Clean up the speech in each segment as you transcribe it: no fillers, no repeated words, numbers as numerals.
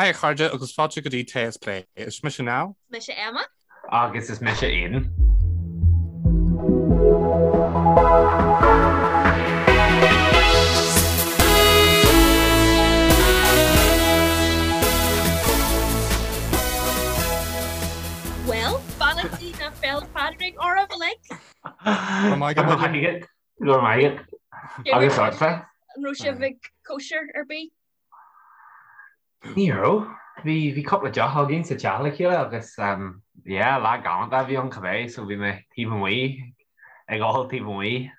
Hi a chairde agus fáilte go dtí Tae is Plé. Is mise Niall. Is mise Emma. Agus is mise Aidan. Bhuel, beannachtaí na Féile Pádraig oraibh uilig. Go maith go maith. Go maith. Agus ortsa? An raibh sibh ag cóisir ar bith? Ní raibh. Bhí bhí cúpla deoch againn sa teach le chéile agus yeah, lá galánta a bhí ann cibé so bhí mé taobh amuigh ag ól taobh amuigh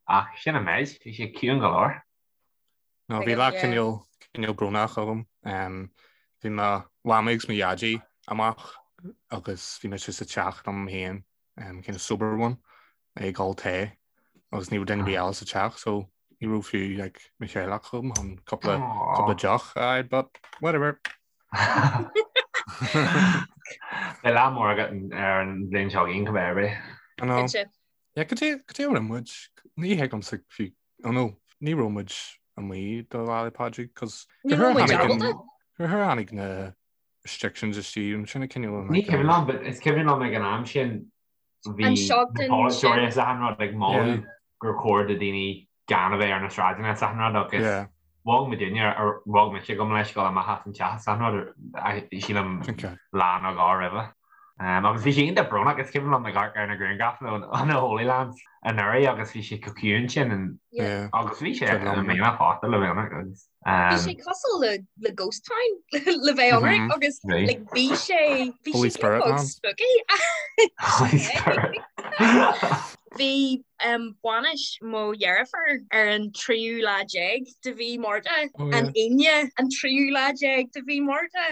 ach sin an méid, bhí sé ciúin go leor. No, bhí lá cineál cineál brónach agam. Bhí mo mhamaí agus mo dhaidí amach agus bhí mise sa teach liom féin, kind of sober one, ag ól tae agus ní raibh duine ar bith eile sa teach so ní raibh fiú like, mo theaghlach agam chun cúpla cúpla deoch a fháil, but whatever. Beidh lá mór agat ar an bhliain seo chugainn cibé ar bith. I know. Yeah, cad é cad é a rinne muid? Ní thuigimse fiú oh no, ní raibh muid amuigh do Lá 'le Pádraig cos Ní raibh muid ábalta. Gur tháinig na restrictions istigh an sin a cineál Ní cuimhin liom, but is cuimhin liom ag an am sin bhí An na seachtain polaiteoirí sin. is achan rud ag moladh gur chóir do daoine gan a bheith ar na sráideanna is achan rud agus Yeah. bhog muidinne ar bhog mise gabh mo leithscéal amach as an teach is achan rud sílim Okay. lá nó dhó roimhe. Agus bhí sé iontach brónach, is cuimhin liom ag amharc ar na grianghrafanna ó na Holylands anuraidh agus bhí sé chomh ciúin sin agus bhí sé i mbliana fosta le bheith ionraic agus. Bhí sé cosúil le le ghost town le bheith ionraic agus like bhí sé bhí Holy sé Spirit beag man. spooky. Holy Spirit. Bhí bainis mo dheirfiúr ar an tríú lá déag de mhí Márta, an Aoine an tríú lá déag de mhí Márta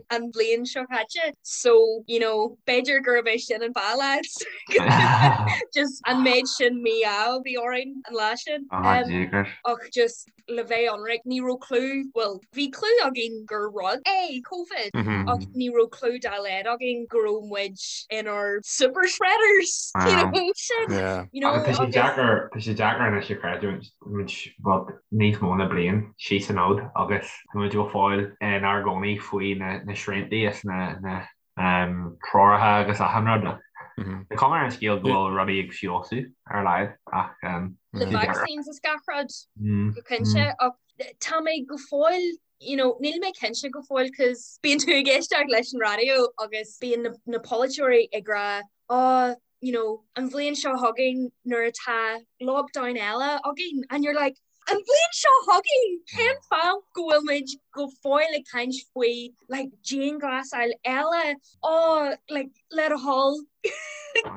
an bhliain seo caite. So, you know, b'fhéidir gurb é sin an fáth lads. Just an méid sin mí-ádh a bhí orainn an lá sin. Ach just le bheith ionraic, ní raibh clue, bhuel, bhí clue againn gur rud é Covid ach ní raibh clue dá laghad againn go raibh muid inár super spreaders, you know, sin, you know, Agus tá sé deacair, tá sé deacair anois a chreidiúint, muid, bhuel, níos mó ná bliain síos an fhód agus tá muid go fóill inár gcónaí faoi na, na sriantaí is na, na, treoracha agus achan rud. Tá cuma ar an scéal go bhfuil rudaí ag feabhsú ar a laghad ach Le vaccines is gach rud go cinnte ach tá mé go fóill you know, níl mé cinnte go fóill cos bíonn tú ag éisteacht leis an raidió agus bíonn na, na polaiteoirí ag rá oh, you know, an bhliain seo chugainn nuair atá lockdown eile againn and you're like An bhliain seo chugainn, cén fáth go bhfuil muid go fóill ag caint faoi like dianghlasáil eile? Oh, like le do thoil,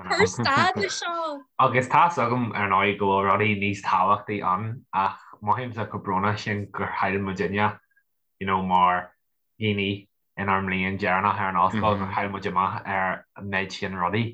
cuir stad le seo. Agus tá's agam ar ndóigh go bhfuil rudaí níos tábhachtaí ann ach mothaímse chomh brónach sin gur chaill muidinne you know mar dhaoine inár mbliain dheireanach ar an ollscoil gur chaill muid amach ar an méid sin rudaí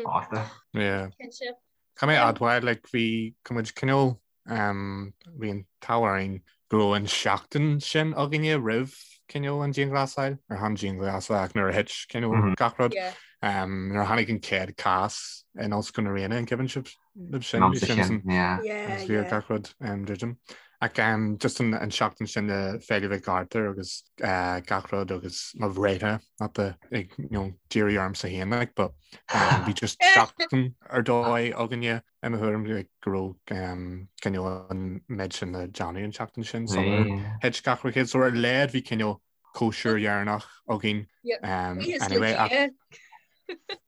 fosta. Yeah. Cinnte. Caithfidh mé a admháil like bhí go muid cineál Bhí an t-ádh orainn go raibh an seachtain sin againne roimh cineál an dianghlasáil, ar chan dianghlasáil ach nuair a thit cineál gach rud. Nuair a tháinig an chéad cás in Ollscoil na Ríona an cuimhin sibh libh sin? Bhí sin agus bhí gach rud druidim. Ach just an seachtain sin le Féile Mhic Arthur agus gach rud agus mo bhreithlá, not the ag you know díriú ormsa féin like but bhí just seachtain ar dóigh againne I mo thuairim go raibh cineál an méid sin le déanamh an tseachtain sin sular thit gach rud. So ar a laghad bhí cineál cóisir dheireanach againn anyway.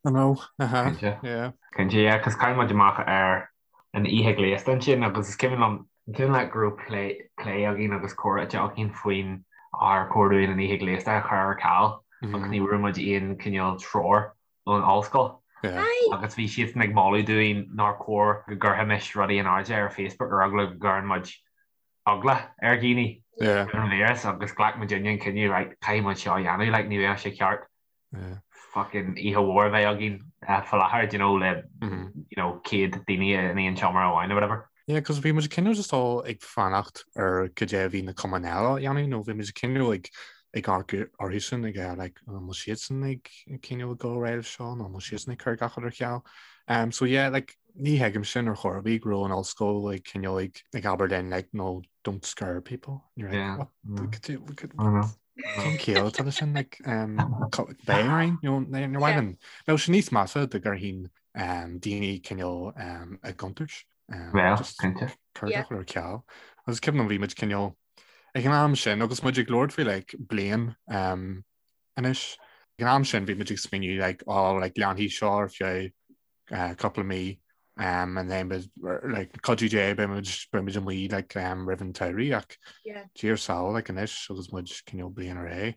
I know, uh-huh, yeah. Cinnte, yeah, cos chaill muid amach ar an oíche ghléasta ansin agus is cuimhin liom, an cuimhin leat go raibh plé, plé againn agus comhráite againn faoin ar chóir dúinn an oíche ghléasta a chur ar ceal agus ní bhfuair muid aon cineál treoir ón ollscoil agus bhí siadsan ag moladh dúinn nár chóir go gcuirfimis rudaí in airde ar Facebook ar eagla go gcuireann muid eagla ar dhaoine ar an víreas agus ghlac muidinne an cinneadh right caithfidh muid seo a dhéanamh like ní bheadh sé ceart fucking oíche mhór a bheith againn faoi láthair do you know le you know 100 daoine in aon seomra amháin or whatever. Yeah, cos bhí muid cineál just all ag fanacht ar cad é a bhí na cumainn eile a dhéanamh nó bhí muid cineál ag ag amharc orthusan ag eh, like an bhfuil siadsan ag cineál ag dul ar aghaidh seo nó an bhfuil siadsan ag cur gach rud ar ceal. Um, so yeah, like ní thuigim sin ar chor ar bith go raibh an ollscoil ag cineál ag ag abair linn like no don't scare people. And you're like, Yeah. what? Mm. Could you, could, I know. Cén chiall atá leis sin like beidh orainn you know níor mhaith linn. Bheadh sé níos measa dá gcuirfinn daoine cineál i gcontúirt. Well, cinnte. Cur ar ceal. Agus cuimhin liom bhí muid cineál ag an am sin agus muid ag labhairt faoi like bliain anois. Ag an am sin bhí muid ag smaoineamh like oh like leanfaidh seo ar feadh cúpla mí and then like cuidiú Dé beidh muid beidh muid amuigh like roimh an tsamhraidh ach Dia ár sábháil like anois agus muid cineál bliain ar aghaidh.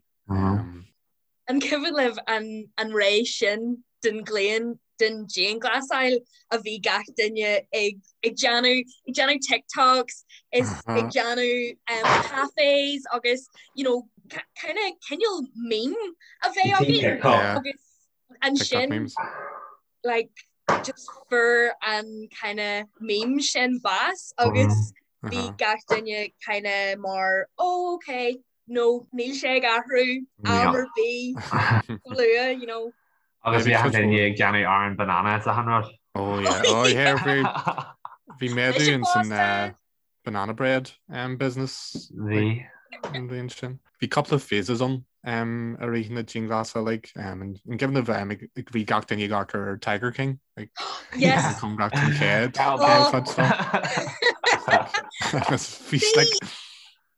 An cuimhin libh an an ré sin den ghlaon den dianghlasáil a bhí gach duine ag ag déanamh ag déanamh TikToks is ag déanamh um, cafés agus you know kind of cineál meme a bheith againn agus ansin like just fuair an kind of meme sin bás agus bhí gach duine kind of mar oh okay no níl sé ag athrú am ar bith luath you know. Agus bhí achan duine ag déanamh arán banana is achan rud. Oh yeah, oh yeah, bhí bhí méadú in san banana bread um, business Bhí. an bhliain sin. Bhí cúpla phases ann um, i rith na dianghlasála like, um, an an cuimhin libh um, ag- ag- bhí gach duine ag amharc ar Tiger King like, Yes. an cóngarach don chéad Oh. chéad chuid seo. Agus bhí like,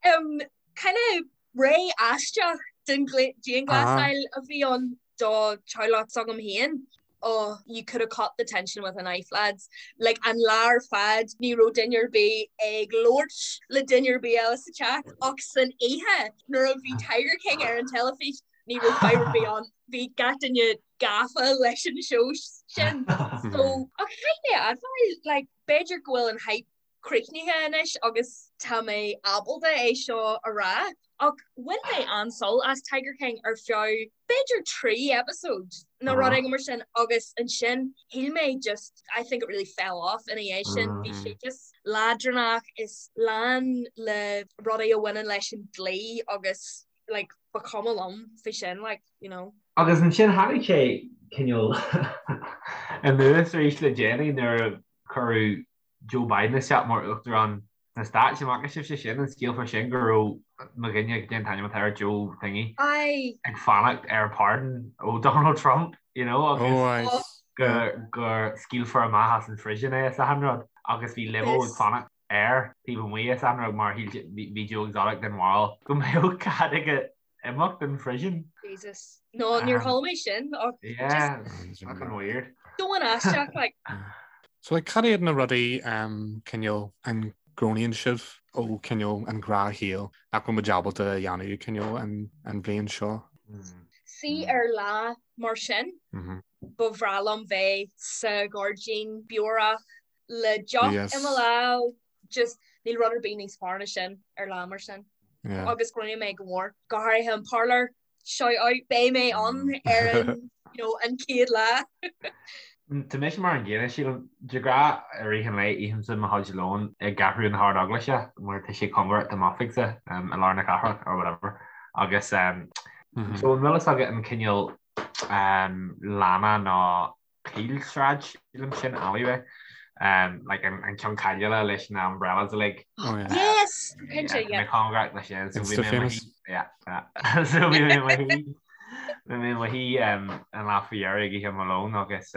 Um, kind of ré aisteach den dianghlasáil a bhí ann do theaghlach s'agam féin. Oh, you could have cut the tension with a knife, lads. Like, an lá ar fad, ní raibh duine ar bith ag labhairt le duine ar bith eile sa teach, ach san oíche, nuair a bhí Tiger King ar an teilifís, ní raibh fadhb ar bith ann. Bhí gach duine gafa leis an seó sin. So, ach caithfidh mé a admháil, like, b'fhéidir go bhfuil an hype críochnaithe anois agus tá mé ábalta é seo a rá, ach bhain mé an-sult as Tiger King ar feadh b'fhéidir 3 episode nó rud éigin mar sin agus ansin shíl mé just I think it really fell off ina dhiaidh sin, bhí sé just leadránach is lán le rudaí a bhaineann leis an dlí agus like ba chuma liom faoi sin like you know. Agus ansin tháinig sé cineál anuas arís le déanaí nuair a cuireadh Joe Biden isteach mar Uachtarán sna Stáit. An bhfaca sibhse sin, an scéal fá sin go raibh mo dhuine, cad é an t-ainm atá air, Joe thingy, ag fanacht ar pardon ó Donald Trump, you know, agus go go scaoilfear amach as an phrison é is achan rud agus bhí limo ag fanacht air taobh amuigh is achan rud mar bhí Joe Exotic den bharúil go mbeadh cead aige imeacht den phriosún. Jesus. No, níor chuala mé sin ach Yeah, just fucking weird. Domhan aisteach like. So like cad iad na rudaí um, cineál an gcronaíonn sibh ó cineál an gnáthshaol nach bhfuil muid ábalta a dhéanamh cineál an, an bhliain seo? See ar lá mar sin, ba bhreá liom bheith sa ghairdín beorach le deoch i mo lámh, just níl rud ar bith níos fearr ná sin ar lá mar sin. Yeah. Agus cronaím é go mór, go háirithe an Parlour, shout out, beidh mé ann ar an, you know, an chéad lá. Tá mise mar an gcéanna, sílim, de ghnáth i rith an lae ithimse mo chuid lóin i gCeathrú na hArd-Eaglaise mar tá sé cóngarach do m'oifigse i lár na cathrach or whatever agus so an bhfuil fhios agat an cineál lána nó Caolsráid, sílim, sin alleyway like an ceann cáiliúla leis na umbrellas uilig. Oh yeah. Yes! Cinnte, yeah. Mé cóngarach leis sin. So bhí mé famous. Yeah, yeah. So bhí mé mo shuí bhí mé mo shuí an lá faoi dheireadh ag ithe mo lón agus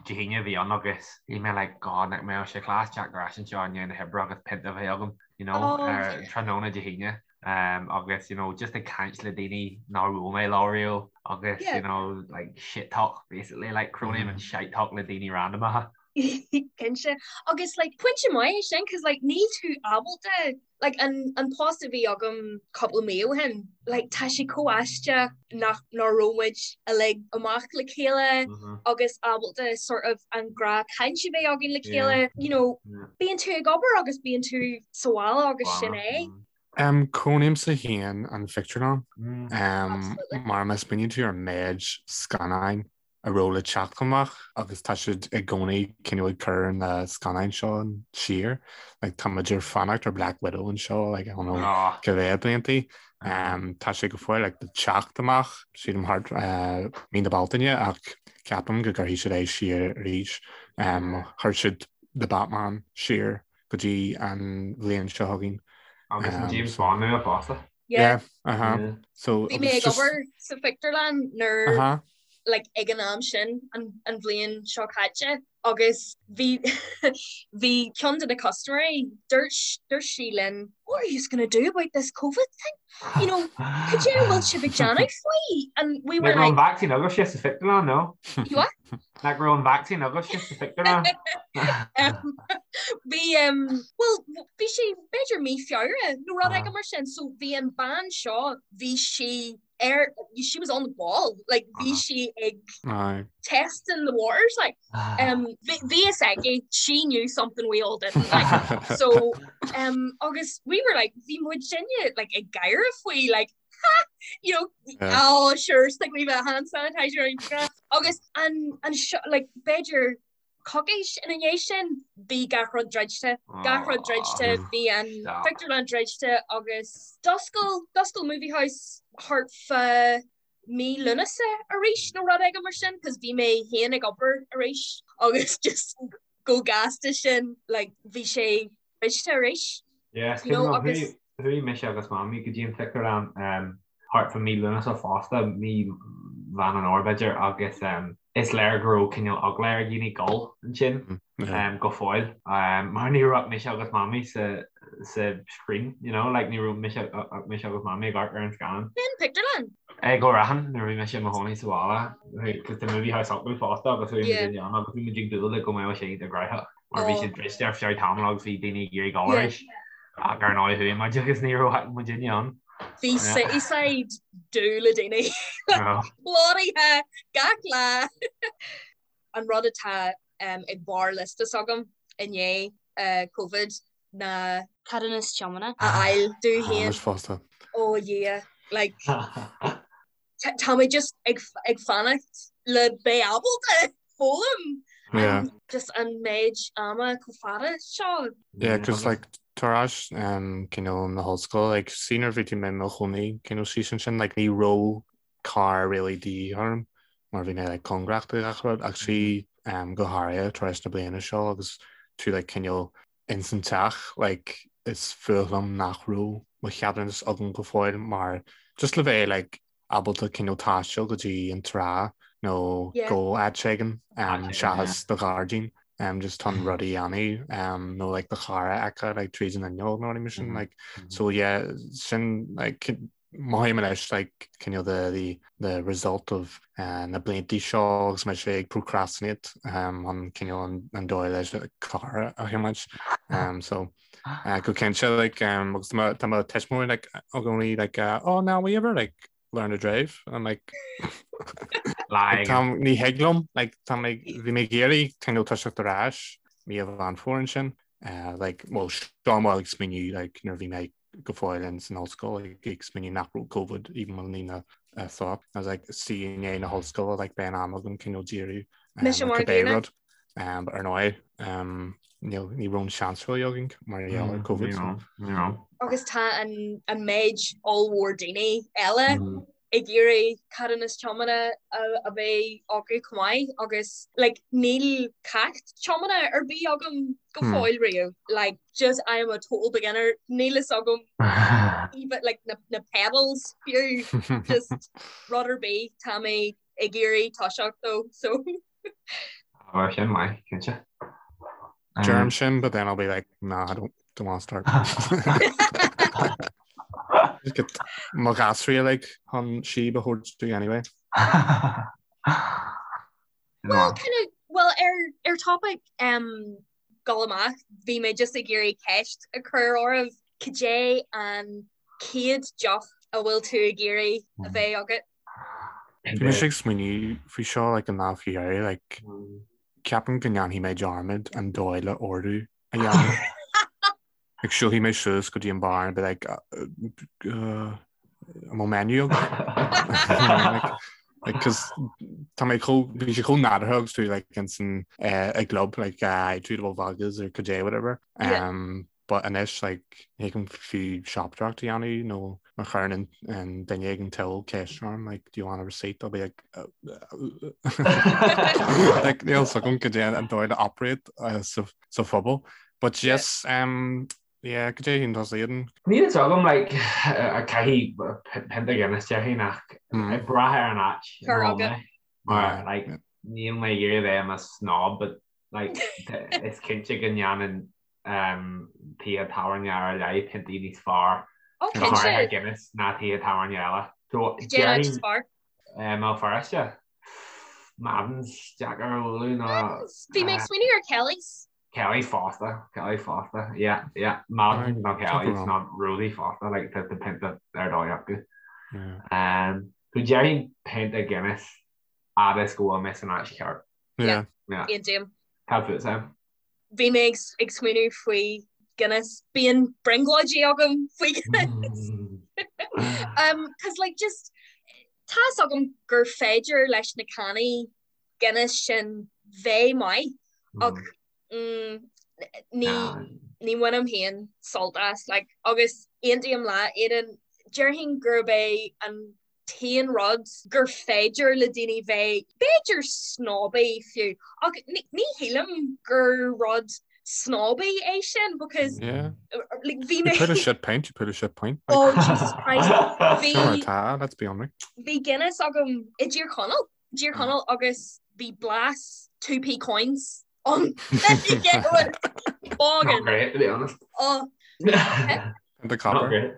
Dé hAoine a bhí ann agus bhí mé like God nach mbeadh sé class teacht ar ais anseo i ndiaidh na hoibre agus pionta a bheith agam, you know, oh, ar tráthnóna Dé hAoine. um agus you know just ag caint le daoine nár bhuail mé leo riamh agus you know like shit talk basically like cronaím an shite talk le daoine randamacha. Cinnte. Agus like pointe maith é sin cos like níl tú ábalta like an an post a bhí agam cúpla mí ó shin like tá sé chomh aisteach nach nach raibh muid uilig amach le chéile agus ábalta sort of an gnáthchaint a bheith againn le chéile you know bíonn tú ag obair agus bíonn tú sa bhaile agus sin é. Cronaímse féin an phictiúrlann mar má smaoiníonn tú ar an méid scannáin a raibh le teacht amach agus tá siad i gcónaí cineál ag cur na scannáin seo siar. Like, tá muid ag fanacht ar Black Widow anseo like, I don't know cá mhéad bliantaí. Tá sé go fóill like, le teacht amach sílim thart mí na Bealtaine ach ceapaim go gcuirfidh siad é siar arís. Chuir siad The Batman siar go dtí an bhliain seo chugainn. Agus an James Bond nua fosta. Yeah. Yeah, uh-huh. Yeah. So Bhí mé ag obair sa phictiúrlann nuair uh-huh. like ag an am sin an, an bhliain seo caite agus bhí bhí ceann de na custaiméirí dúirt dúirt sí linn what are you gonna do about this COVID thing? You know, cad é a bhfuil sibh ag déanamh faoi? And we were Nach raibh an like vaccine agaibhse sa phictiúrlann, no? You what? Nach raibh an vaccine agaibhse sa phictiúrlann? Um, bhí um, well bhí sé b'fhéidir mí Feabhra nó rud éigin mar sin so bhí an bean seo bhí sí ar she was on the ball like bhí sí ag Aye. testing the waters like um bhí bhí fhios aici she knew something we all didn't like so um agus we were like bhí muidinne like ag gáire faoi like ha you know Yeah. oh sure stick wee bit of hand sanitizer on your agus an an seo like b'fhéidir coicís ina dhiaidh sin bhí gach rud druidte, gach rud druidte, bhí an phictiúrlann druidte agus d'oscail, d'oscail Movie House thart fá mí Lúnasa arís nó rud éigin mar sin cos bhí mé féin ag obair arís agus just chomh gasta sin like bhí sé druidte arís. Yes, You know, agus. Chuaigh mise agus Mamaí go dtí an phictiúrlann thart fá mí Lúnasa fosta, mí Mheán an Fhómhair b'fhéidir, agus is léir go raibh cineál eagla ar dhaoine dul ansin go fóill, mar ní raibh mise agus Mamaí sa sa screen, you know, like ní raibh mise mise agus Mamaí ag amharc ar an scannán. Cén pictiúrlann? I gCill Raithin nuair a bhí mise i mo chónaí sa bhaile, cos tá Movie House acu fosta agus chuaigh muid ann agus bhí muid ag dúil le go mbeadh sé iontach gnóthach. Mar bhí siad druidte ar feadh tamaill agus bhí daoine ag iarraidh dul arís ach ar ndóigh chuaigh muid agus ní raibh muidinne ann. Bhí Cityside dubh le daoine. Plódaithe gach lá. An rud atá ag barr liosta s'agam i ndiaidh Covid ná Ceadúnas tiomána. a fháil domh féin. Táimid fosta. Ó a Dhia, like tá mé just ag ag fanacht le beith ábalta foghlaim Yeah. just an méid ama chomh fada seo. Yeah, cos like tar éis um, cineál na hollscoile, like see nuair bhí tú mé i mo chónaí cineál síos ansin, like ní raibh carr really de dhíth orm mar bhí mé like cóngarach do gach rud ach see um, go háirithe tar éis na bliana seo agus tú like cineál ins an teach like is fuath liom nach raibh mo cheadúnas agam go fóill mar just le bheith like ábalta cineál taisteal go dtí an trá nó Yeah. go áit éigin um, Áit éigin, seachas do ghairdín um, just chun rudaí a dhéanamh um, nó like do charr a fheiceáil like tríd an fhuinneog nó rudaí mar sin Mhm. like so yeah sin like mothaím anois like cineál the the the result of uh, na bliantaí seo agus mise ag procrastinate um, an cineál an, an dóigh leis carr a thiomáint um, so uh, go cinnte like um, agus tá tá mo tuismitheoirí like i gcónaí like uh, oh now will you ever like learn to drive and I'm like Like, tá ní thig liom like tá mé bhí mé ag iarraidh cineál toiseacht ar ais mí Mheán Fómhair ansin uh, like well seo mé ag smaoineamh like nuair a bhí mé go fóill in san ollscoil ag smaoineamh nach raibh Covid even wasn't even a thought. I was like see i ndiaidh na hollscoile like beidh an am agam cineál díriú Mise ar mar cibé gcéanna. rud. Um, but ar ndóigh um, níl ní raibh an seans really againn mar gheall ar Covid. Ní So. raibh, ní raibh. Agus tá an, an méid ollmhór daoine eile ag iarraidh ceadúnas tiomána a bheith acu chomh maith agus like níl ceacht tiomána ar bith agam go fóill riamh like just I am a total beginner níl fhios agam even like na, na pedals fiú just rud ar bith tá mé ag iarraidh toiseacht dó so Bheadh sin maith, cinnte. Deirim sin, but then I'll be like, nah, I don't, don't want to start. Just get mo ghasraí like chun síob a thabhairt domh anyway. Well, kind of, well, ar, ar topic um, dul amach, bhí mé just ag iarraidh ceist a chur oraibh, cad é an chéad deoch a bhfuil tú ag iarraidh a bheith agat? Bhí mise ag smaoineamh faoi seo like an lá faoi dheireadh, like ceapaim go ndéanfaidh mé dearmad an dóigh le ordú a dhéanamh. Like siúlfaidh mé suas go dtí an bar and be like uh, uh, an bhfuil menu agat? Like, like, 'cause tá mé chomh, bhí sé chomh nádúrtha agus tú like insan eh, i gclub like uh, tú bhfuil Vegas or cad é whatever. Yeah. Um, But anois like ní thig liom fiú siopadóireacht a dhéanamh nó má chuireann an duine ag an till ceist orm like do you want a receipt I'll be like like níl fhios agam cad é an dóigh le operate uh, sa, sa phobal. But yes, um, Yeah, cad é a shíleann tusa, Aidan? Níl fhios agam, like, caithfidh pionta Guinness déarfainn ach ag brath ar an áit ina bhfuil mé. Mar, like, níl mé ag iarraidh a bheith i mo snob, but, like, is cinnte go ndéanann tithe tábhairne ar leith piontaí níos fearr, go háirithe Guinness, ná tithe tábhairne eile. So, déarfainn. I mBéal Feirste, Madden's deacair a bhualadh ná. Madden's! Bhí mé ag smaoineamh ar Kelly's. Kelly's fosta, Kelly's fosta, yeah, yeah, Madden's nó Kelly's nó Rosie fosta, like tá pionta ar dóigh acu. Um, so déarfainn pionta Guinness fhad is go bhfuil mé san áit cheart. Yeah. Yeah. Aontaím. Cad fút, Sam? Bhí mé ag smaoineamh faoi Guinness. Bíonn brionglóidí agam faoi Guinness. Um, cause like just tá's agam gur féidir leis na cannaí Guinness sin bheith maith ach ní ní bhainim féin sult as like agus aontaím leat Aidan déarfainn gurb é an t-aon rud gur féidir le daoine bheith b'fhéidir snobby fiú ach ní shílim gur rud snobby é sin because yeah. like, bhí mé put a shit pint you put a shit pint like, oh Jesus Christ bhí tá let's be honest bhí Guinness agam i dTír Chonaill dTír Chonaill agus bhí blas 2p coins ann. Not great, to be honest. Oh. The copper. Not great.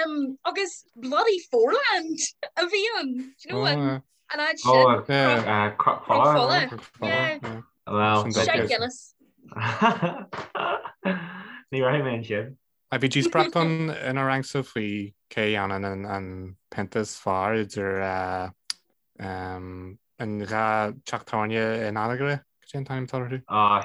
Um, agus bloody Foreland a bhí ann. Do you know what? Oh, An áit sin. Oh, yeah. Uh, Cnoc Fola. Yeah. Well, Shite Guinness. Ní raibh mé ansin. A bhí díospóireacht ann inár rangsa faoi cé a dhéanann an pionta is fearr idir an dhá teach tábhairne in Anagaire, cad é an t-ainm atá orthu? Ah,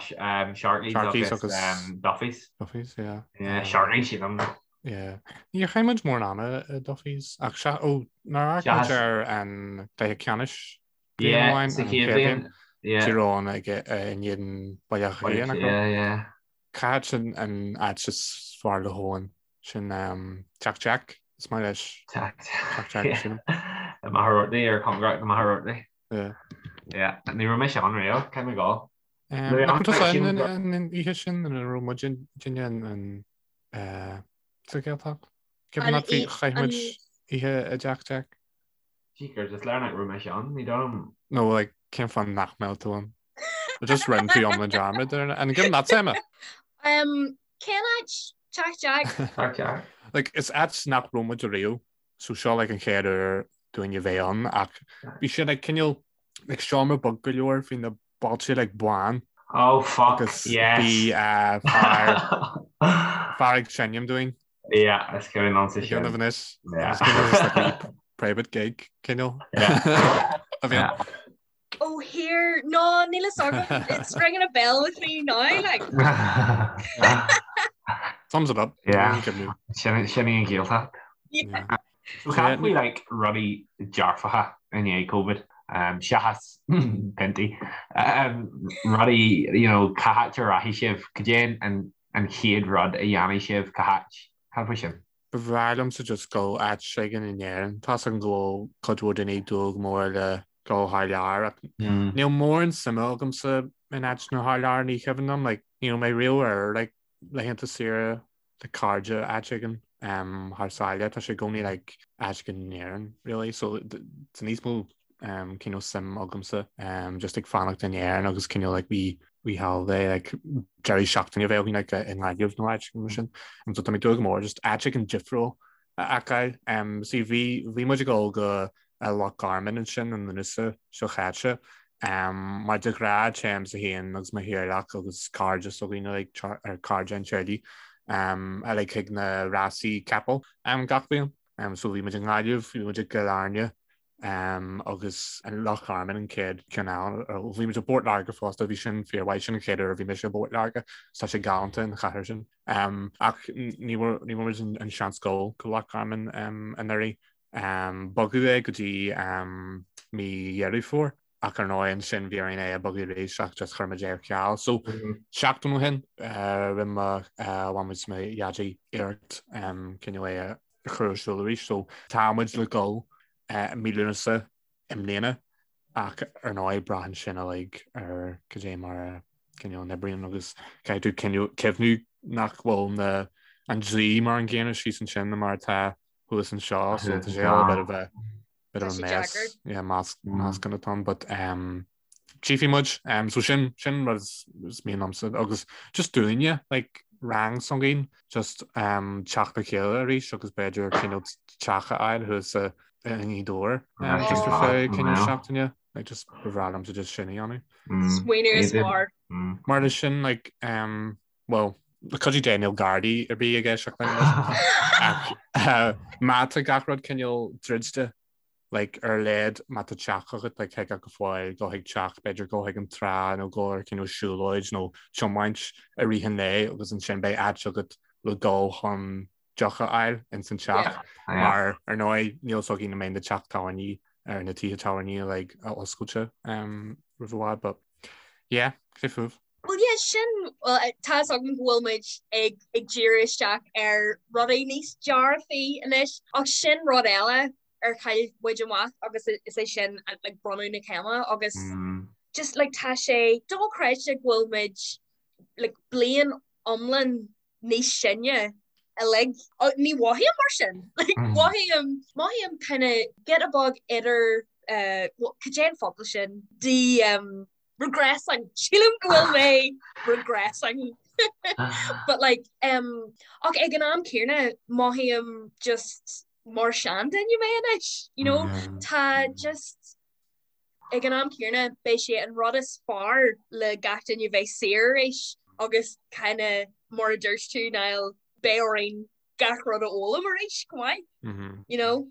Sharkey's agus Duffy's. Duffy's, yeah. Yeah, Sharkey's, sílim. Yeah. Níor chaith muid mórán ama i Duffy's ach sea, ó, nár amharc muid ar an gcluiche ceannais bliain amháin, an chéad bhliain, Tír Eoghain ag in éadan Baile Átha Cliath, nach raibh? Yeah, yeah. Cá háit sin an áit is fearr le hEoin? Sin Teach Jack, is maith leis. Teach Jack. Teach Jack, sílim. I Machaire Rabhartaigh ar cóngarach do Machaire Rabhartaigh. Yeah. Yeah, ní raibh mise ann riamh, caithfidh mé gabháil. Nach raibh tusa ann an oíche sin ina raibh muidinne an sa Ghaeltacht? Ceapaim nach bhí, chaith muid oíche i dTeach Jack. Jeekers, is léir nach raibh mise ann, ní dóigh liom. No, like, cén fáth nach mbeadh tú ann? Just rinne tú iomlán dearmad ar an gcim leat, Emma? Um, cén áit? Teach Jack? Teach Jack. Like, is áit nach raibh muid ariamh, so seo like an chéad uair dúinn a bheith ann, ach bhí sé like cineál like seomra beag go leor, bhí na bailte like bán. Oh fuck, Agus yes. bhí uh, fear, fear ag seinm dúinn. Yeah, is cuimhin liomsa sin. Déanamh anois. Yeah. Is cuimhin liom like a private gig cineál. Yeah. A bhí ann. Oh here, no, níl a fhios agam. It's ringing a bell with me now, like. Sums it up. Yeah. Sin sin í an Ghaeltacht. Yeah. So cad faoi like rudaí dearfacha i ndiaidh Covid, um, seachas piontaí, um, rudaí, you know, cá háit a rachaidh sibh, cad é an, an chéad rud a dhéanfaidh sibh, cá háit, cad faoi sin? Ba bhreá liomsa just dul áit éigin in Éirinn. Tá's agam go bhfuil cuid mhór daoine ag dúil go mór le dul thar lear ach níl mórán suime agamsa in áiteanna thar lear, ní cuimhin liom, like, ní raibh mé riamh ar like, laethanta saoire le cairde áit éigin thar sáile, tá sé i gcónaí like, áit éigin in Éirinn, really, so tá níos mó cineál suim agamsa just ag fanacht in Éirinn agus cineál like wee wee holiday like deireadh seachtaine a bheith againn like i nGaillimh nó áit mar sin. So tá mé ag dúil go mór just áit éigin difriúil a fheiceáil. See bhí bhí muid ag dul go Loch Garman ansin i Lúnasa seo chaite. Mar de ghnáth téimse féin agus mo theaghlach agus cairde s'againne like ar cairde an teaghlaigh like chuig na rásaí capall gach bliain. So bhí muid i nGaillimh, bhí muid i gCill Airne, agus an Loch Garman an chéad cheann eile. Bhí muid i bPort Láirge fosta, bhí sin fíormhaith, sin an chéad uair a bhí mise i bPort Láirge, tá sé galánta an chathair sin. Ach ní bhfuair muid an seans dul go Loch Garman anuraidh. Bogadh é go dtí mí Dheireadh Fómhair ach ar ndóigh ansin bhí orainn é a bhogadh arís ach just chuir muid é ar ceal. So seachtain ó shin rinne mo mham is mo dhaidí iarracht cineál é a chur ar siúl arís. So tá muid le dul i mí Lúnasa i mbliana ach ar ndóigh braitheann sin uilig ar cad é mar a. cineál n-oibríonn agus caithfidh tú cineál cuimhniú nach bhfuil na an dlí mar an gcéanna síos ansin ná mar atá thuas anseo so tá sé all a bit of a bit of a mess yeah meascán atá ann but um tchífidh muid um so sin sin rud is mian liomsa agus just dúinne like rang s'againn just um teacht le chéile arís agus b'fhéidir cineál teach a fháil thuas i nGaoth Dobhair um just ar feadh cineál seachtaine. Like just ba bhreá liomsa just sin a dhéanamh. Smaoineamh is fearr. Mar leis sin like um, well le cuidiú Dé níl Gardaí ar bith ag éisteacht linn ach má tá gach rud cineál druidte like ar a laghad má tá teach agat like thig leat go fóill dul chuig teach b'fhéidir dul chuig an trá nó dul ar cineál siúlóid nó tiomáint i rith an lae agus ansin beidh áit agat le dul chun deoch a fháil ins an teach mar ar ndóigh níl fhios againn an mbeidh na teach tábhairní ar na tithe tábhairní like oscailte um, roimh i bhfad but yeah cé fúibh. Well yeah sin well, tá fhios agam go bhfuil muid ag ag díriú isteach ar rudaí níos dearfaí anois ach sin rud eile ar chaill muid amach agus is é sin like bronnadh na céime agus mm. just like tá sé dochreidte go bhfuil muid like bliain iomlán níos sine uilig. Ní mhothaím mar sin. Like, mothaím, mothaím kind of giota beag idir, uh, cad é an focal sin? De, um, regressing. Sílim go bhfuil mé regressing. But like, um, ach ag an am céanna mothaím just mar seanduine mé anois, you know? Tá just Ag an am céanna, beidh sé an rud is fearr le gach duine bheith saor arís agus kinda mar a dúirt tú, Niall, beidh orainn gach rud a fhoghlaim arís chomh maith, you know?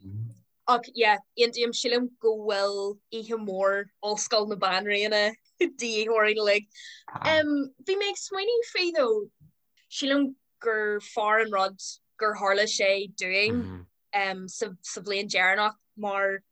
Ach yeah, aontaím, sílim go bhfuil oíche mhór Ollscoil na Banríona de dhíth orainn uilig. Bhí mé ag smaoineamh faoi though, sílim gur fearr an rud gur tharla sé dúinn um, sa, sa bhliain deireanach mar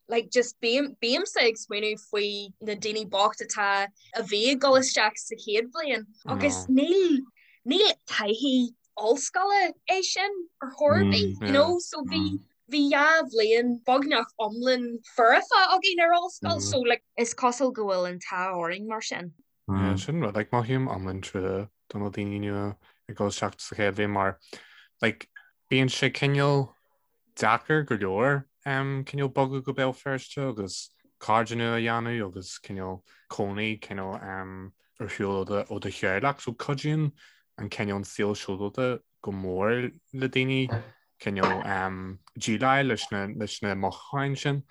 like just bím, bímse ag smaoineamh faoi na daoine bocht atá a bhí ag dul isteach sa chéad bhliain agus níl níl taithí ollscoile é sin ar chor ar bith, you know, so bhí bhí dhá bhliain beagnach iomlán foirfe againn ar ollscoil so like is cosúil go bhfuil an t-ádh orainn mar sin. Yeah, sin rud like mothaím iomlán trua do na daoine nua ag dul isteach sa chéad bhliain mar like Bíonn sé cineál deacair go leor cineál bogadh go Béal Feirste agus cairde nua a dhéanamh agus cineál cónaí cineál ar shiúl ó do theaghlach. So cuidíonn an cineál an saol sóisialta go mór le daoine cineál déileáil leis na leis na mothúcháin sin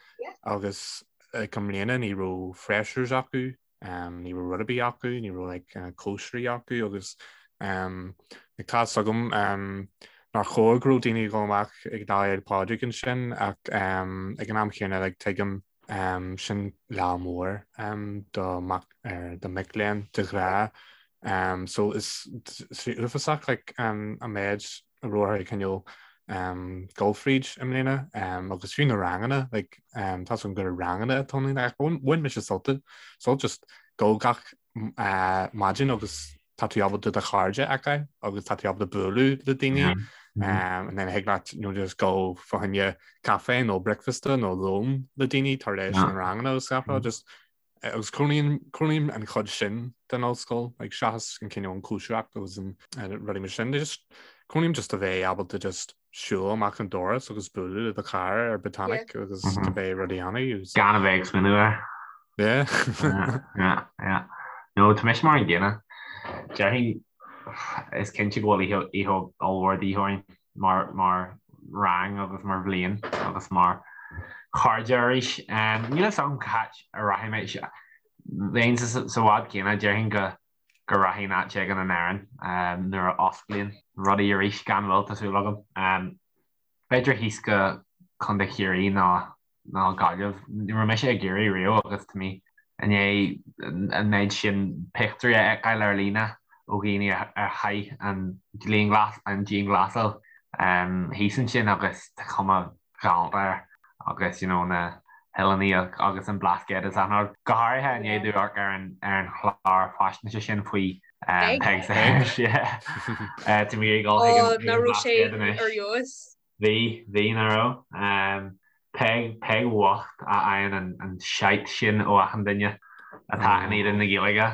agus like i mbliana ní raibh freshers acu Ní raibh rud ar bith acu, ní raibh like cóisirí acu agus like tá fhios agam nár chóir go raibh daoine ag dul amach ag Lá Fhéile Pádraig ansin ach ag an am chéanna like tuigim sin lá mór do mac do mic léinn de ghnáth. So is uafásach like an méid a raibh orthu cineál dul fríd i mbliana agus fiú na ranganna like tá fhios agam gur ranganna atá ann ach bhain mise sult sult just dul gach maidin agus tá tú ábalta do chairde a fheiceáil agus tá tú ábalta bualadh le daoine and then thig leat you know just go fá choinne caife nó bricfeasta nó lón le daoine tar éis na ranganna agus gach rud just Agus cronaím an chuid sin den ollscoil, like seachas an cineál an cóisireacht agus an rudaí mar sin, just cronaím just a bheith ábalta just siúl amach an doras agus bualadh le do chara ar Botanic agus cibé rud a dhéanamh. Gan a bheith ag smaoineamh air. Yeah. Yeah, yeah. No, tá mise mar an gcéanna. Déarfainn, is cinnte go bhfuil oíche oíche ollmhór de dhíth orainn. mar mar rang agus mar bhliain agus mar chairde arís. Níl fhios agam cá háit a rachaidh mé. Bheinn sa bhád céanna, déarfainn go go rachainn áit éigin in Éirinn nuair a osclaíonn rudaí arís, gan mhoill, tá súil agam. B'fhéidir thíos go Contae Chiarraí nó ná Gaillimh. Ní raibh mise i gCiarraí riamh agus tá mé i ndiaidh an méid sin pictiúirí a fheiceáil ar líne ó dhaoine a chaith an dianghlasáil thíos ansin agus tá cuma ghalánta air agus you know na hoileáin agus an Blascaod is achan rud. Go háirithe i ndiaidh domh amharc ar an chlár faisnéise sin faoi Peig Sayers. Tá mé ag dul chuig an Blascaod anois. Bhí, bhí, nach raibh? Peig, Peig bhocht a fhaigheann an shite sin ó achan duine atá in éadan na Gaeilge.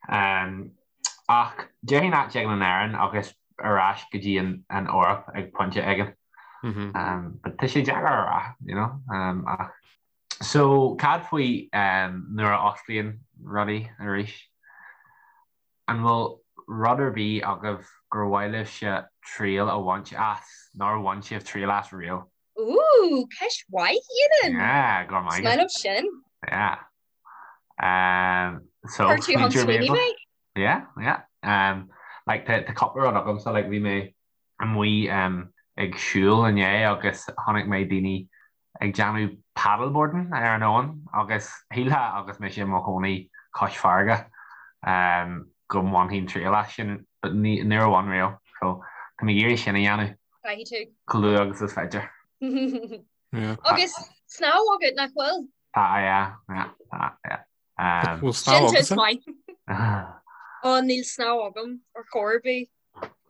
Ach déarfainn áit éigin in Éirinn agus ar ais go dtí an Eoraip ag pointe éigin. But tá sé deacair a rá, you know, ach. So cad faoi nuair a osclaíonn rudaí arís? An bhfuil rud ar bith agaibh gur mhaith libhse triail a bhaint as, nár bhain sibh triail as riamh? Ooh, ceist mhaith, Ian! Yeah, go raibh maith agat. Is maith liom sin. Yeah. So, Chuir tú chun smaoinigh mé? Yeah, yeah. Like, tá cúpla rud agamsa, like, bhí mé amuigh ag siúl inné agus chonaic mé daoine ag déanamh paddleboarding ar an abhainn agus shílfeá agus mise i mo chónaí cois farraige go mbainfinn triail as sin but níor bhain riamh so tá mé ag iarraidh sin a dhéanamh Caithfidh tú. chomh luath agus is féidir. Agus snámh agat nach bhfuil? Tá yeah, yeah, tá yeah. Bhfuil snámh Sin tús maith. Ó níl snámh agam ar chor ar bith.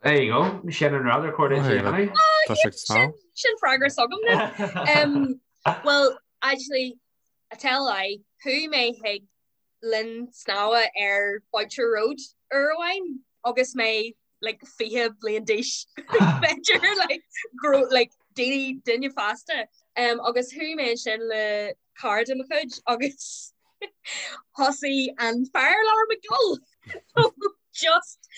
There you go, sin an rud ar chóir duit a dhéanamh. Tá sé ag snámh. Sin freagra s'agam. Well, actually, I tell a lie, chuaigh mé chuig linn snámha ar Boucher Road uair amháin agus mé like 20 bliain d'aois b'fhéidir like grow like daoine duine fásta um, agus chuaigh mé ansin le cara de mo chuid agus thosaigh an fire alarm ag dul so just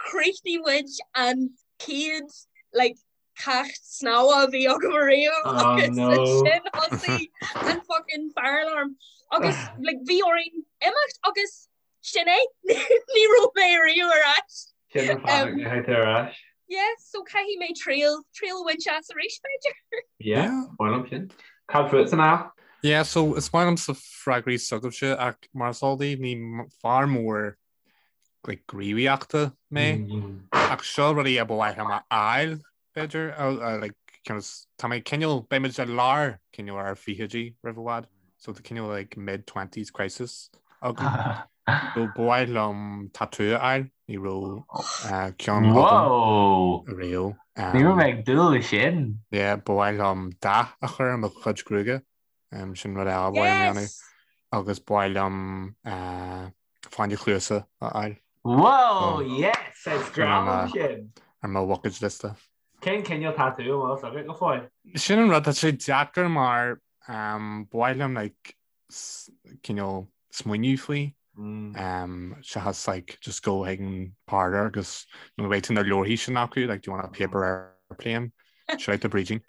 chríochnaigh muid an chéad like ceacht snámha a bhí agam ariamh Oh, agus no. ansin thosaigh an fucking fire alarm agus like bhí orainn imeacht agus sin é ní raibh mé ariamh ar ais. Sin an fáth nach ndeachaigh tú ar ais. Yeah, so caithfidh mé triail triail a bhaint as arís b'fhéidir. Yeah, maith liom sin. Cad fútsa Niall? Yeah, so is maith liomsa freagraí s'agaibhse ach mar is eol daoibh ní fear mór like, gníomhaíochta mé ach seo rudaí a ba mhaith liom a fháil b'fhéidir like, tá mé cineál beidh muid i lár cineál ár fichidí roimh i bhfad so tá cineál like, mid twenties crisis agam. So ba mhaith liom tatú a fháil ní raibh ceann agam riamh. Ní raibh mé ag dúil leis sin. Yeah, ba mhaith liom dath a chur ar mo chuid gruaige sin rud eile ba mhaith liom a dhéanamh agus ba mhaith liom fáinne cluasa a fháil. Whoa, yes! Is grá liom sin! Ar mo bhucket liosta. Cén cineál tatú an bhfuil fhios agat go fóill? Sin an rud, tá sé deacair mar ba mhaith liom like cineál smaoineamh faoi seachas like just go chuig an parlour agus nó beidh tú na leabharthaí sin acu like do you want a paper airplane? Shout out to Brídín.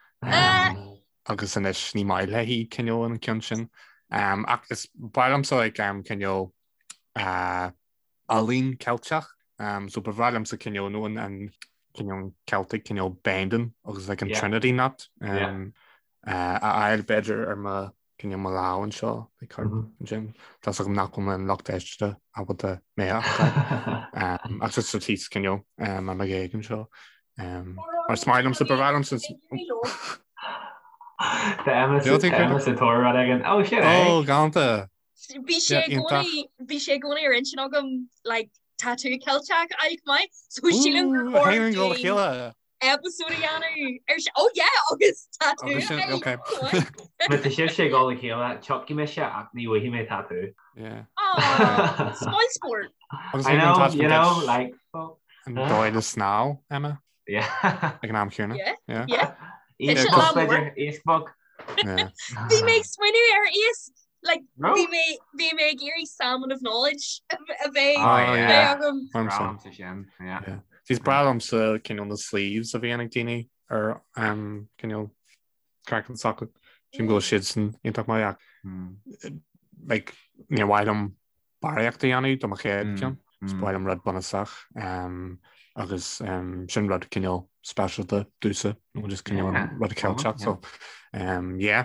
Agus anois ní maith léi cineál an ceann sin. Ach is ba mhaith liomsa like cineál ealaín Ceilteach so ba bhreá liomsa cineál nó an cineál Celtic cineál binding agus like an Trinity knot a fháil b'fhéidir ar mo cineál mo lámh anseo like thart ansin. Tá 's agam nach bhfuil an lucht éisteachta ábalta mé a fheiceáil ach just sa tíos cineál ar mo ghéag anseo. Mar is maith liomsa ba bhreá liomsa Tá Emma sa tóir rud éigin. Ó sin é! Ó galánta! Bhí sé i gcónaí bhí sé i gcónaí ar intinn agam like tatú Ceilteach a fháil chomh maith so sílim gur chóir dúinn episode a dhéanamh ar sin. Oh yeah agus tatú a fháil chomh maith. Má tá sibhse ag dul le chéile, tiocfaidh mise ach ní bhfaighidh mé tatú. Yeah. Aw, spoilsport. Agus I know, you know, like, An dóigh le snámh, Emma? Yeah. Ag an am céanna. Yeah, Yeah. yeah. Iasc Tá sé lá b'fhéidir, mór. iasc beag. Yeah. Bhí mé ag smaoineamh ar iasc, like, No. bhí mé bhí mé ag iarraidh salmon of knowledge a bheith Oh, a yeah. bheith agam. Mar Breá sin. liomsa sin, yeah. Yeah. Is breá liomsa cineál na sleeves a bhíonn ag daoine ar um, cineál craiceann s'acu. Sílim go bhfuil siad sin iontach maith ach Mm. like, níor mhaith liom barraíocht a dhéanamh do mo chéad cheann. Is ba mhaith liom rud bunúsach agus sin rud cineál speisialta domhsa nó just cineál an rud Ceilteach so yeah.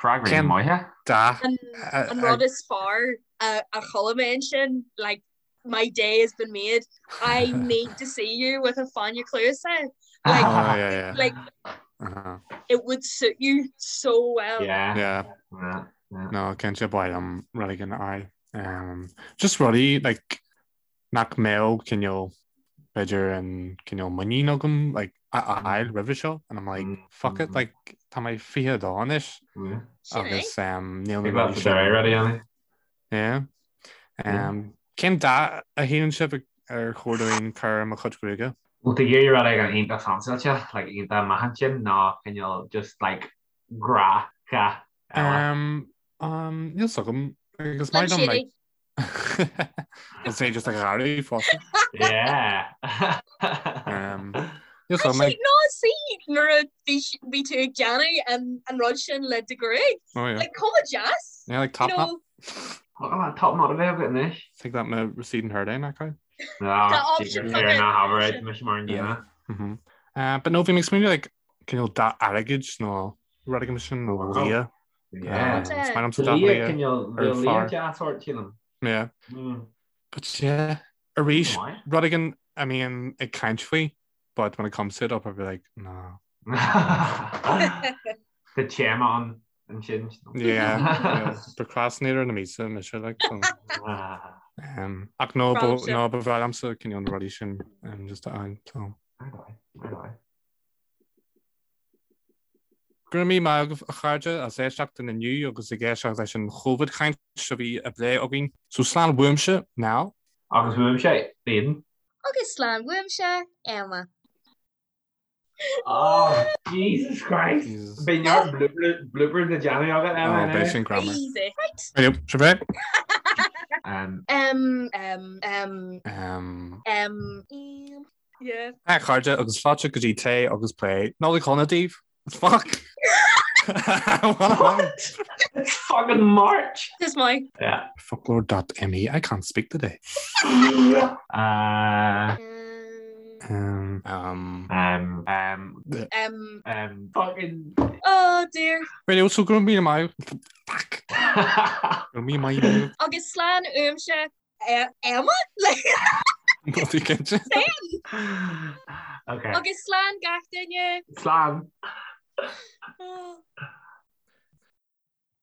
Freagraí maithe. Dath. An rud is fearr a chuala mé ansin like my day has been made I need to see you with a fáinne cluasa like oh, yeah, yeah. like uh -huh. it would suit you so well. Yeah. Yeah. yeah. No, cinnte ba mhaith liom rud éigin a fháil. Um, just rudaí like, nach mbeadh cineál b'fhéidir an cineál muinín agam like, a fháil roimhe seo and I'm like Mm, fuck it mm. like tá mé 22 anois Yeah. Sin é. agus um, níl na Big rudaí lads sin are ready, Annie. Yeah. Yeah. Um, Cén dath a shíleann sibh ar chóir dúinn cur ar mo chuid gruaige? Bhfuil tú ag iarraidh rud éigin iontach fansáilte, like iontach maith ansin, nó cineál just like gnáthdhath eile? Um, um, níl 's agam. Agus maith liom, like, Is é just a ghearradh fosta. Yeah. Um, níl 's agam, like, No, see, nuair a bhí bhí tú ag déanamh an an rud sin le do ghruaig. Oh yeah. Like, chomh deas. Yeah, like top You knot. know, Look at that top knot a bheith agat anois. Think that my receding hairline, that kind. Tá option Ar ná habair mise mar an gcéanna. Mhm. Uh, but no, bhí mé ag smaoineamh like cineál dath airgid nó rud éigin sin nó liath. Yeah. Is maith liomsa dath liath. Cineál ar liath fearr. deas ort sílim. Yeah. Mm. But yeah, arís, Maith. rud éigin a mbím ag caint faoi, but when it comes to it, I'll probably be like, no. Tá téama an ansin. Yeah, yeah. Procrastinator na míosa mise like so. Um, ach no, ba, Fáilte. no, ba bhreá liomsa cineál na rudaí sin um, just a fháil, so. Go raibh míle maith agaibh a chairde as éisteacht linn inniu agus ag éisteacht leis an Chóivid chaint a bhí á bplé againn. So slán uaimse, Niall. Agus uaimse, Aidan. Agus slán uaimse, Emma. Oh, Jesus Christ. Jesus. Beidh neart bloopers le déanamh agat, Emma. Oh, beidh sin greannmhar. Easy. Right. Right, sibh é? Um, Um, um, um, Um, um, um, yeah. A chairde agus fáilte go dtí Tae agus Plé. Nollaig shona daoibh. Fuck! What? It's fucking March! This my. Yeah. Foclóir.me I can't speak today. Uh, Um, um, um, um, Um, um, fucking. oh dear. Radio so go raibh míle maith. Fuck! Go raibh míle maith. Agus slán uaimse Emma? Níl tú cinnte? Okay. Agus slán gach duine. Slán. Oh.